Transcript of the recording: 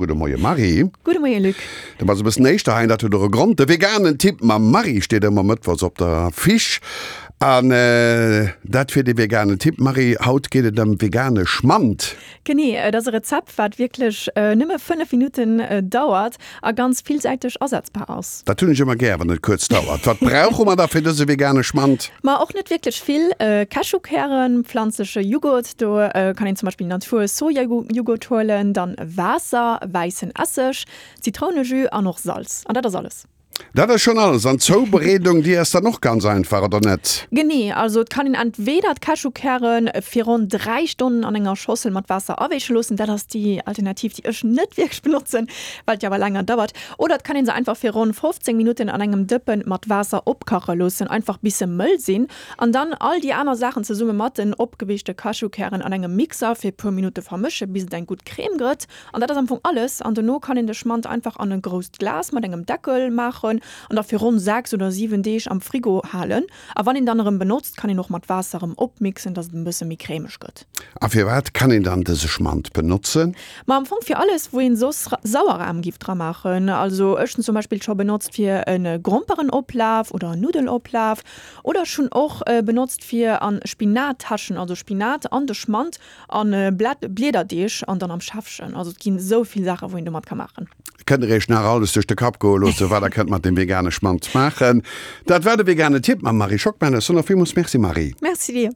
Gudde Moie Marie. Gudde Moie Luc. Du bass e bëssen éischter hei an dat huet och e Grond. De veganen Tipp mam Marie steet ëmmer mëttwochs op der Affiche. An dat fir de veganen Tipp. Marie, haut geet et ëm vegane Schmand. Genee, et ass e Rezept, wat wierklech nëmme 5 Minutten dauert a ganz villsäiteg asetzbar ass. Dat hunn ech ëmmer gär, wann et kuerz dauert. Wat brauche mer da fir dëse vegane Schmand? Ma och net wierklech vill. Cashewkären, pflanzleche Jughurt, do kann een zum Beispill Natur Sojajughurt huelen, dann Waasser, wäissen Esseg, Zitrounejus an och Salz. An dat ass alles. Dat ass schonn alles. An d'Zoubereedung, déi ass dann och ganz einfach, oder net? Genee, also et kann een entweder d'Cashewkäre fir ronn 3 Stonnen an enger Schossel mat Waasser aweeche loossen, dat ass déi Alternativ, déi ech net wierklech benotzen, well et jo awer länger dauert, oder et kann een se einfach fir ronn 15 Minutten an engem Dëppen mat Waasser opkache loossen, einfach bis se mëll sinn, an dann all déi aner Saachen zesumme mat den opgeweechte Cashewkären an engem Mixer fir puer Minutte vermësche bis et eng gutt Crème gëtt. An dat ass am Fong alles. An dono kann een de Schmand einfach an e grousst Glas mat engem Deckel maachen an da fir ronn 6 oder 7 Deeg am Frigo halen. A wann een dann erëm benotzt, kann een och mat Waasser erëm opmixen, dass et en bësse méi cremeg gëtt. A firwat kann een dann dëse Schmand benotzen? Ma am Fong fir alles, wou een soss Sauerrahm giff dra maachen. Also ech hunn zum Beispill scho benotzt fir e Grompereноplaaf oder en Nuddeloplaaf. Oder ech hunn och benotzt fir an Spinattäschen, also Spinat an de Schmand An Bliederdeeg an dann am Schäffchen. Also et ginn esou vill Saachen, wou een domat ka maachen. Kënnt der iech nach alles duerch de Kapp goe loossen, wat der kënnt mat dem vegane Schmand maachen. Dat war de vegane Tipp mam Marie Schockmel. Ech soen och villmools Merci Marie. Merci dir.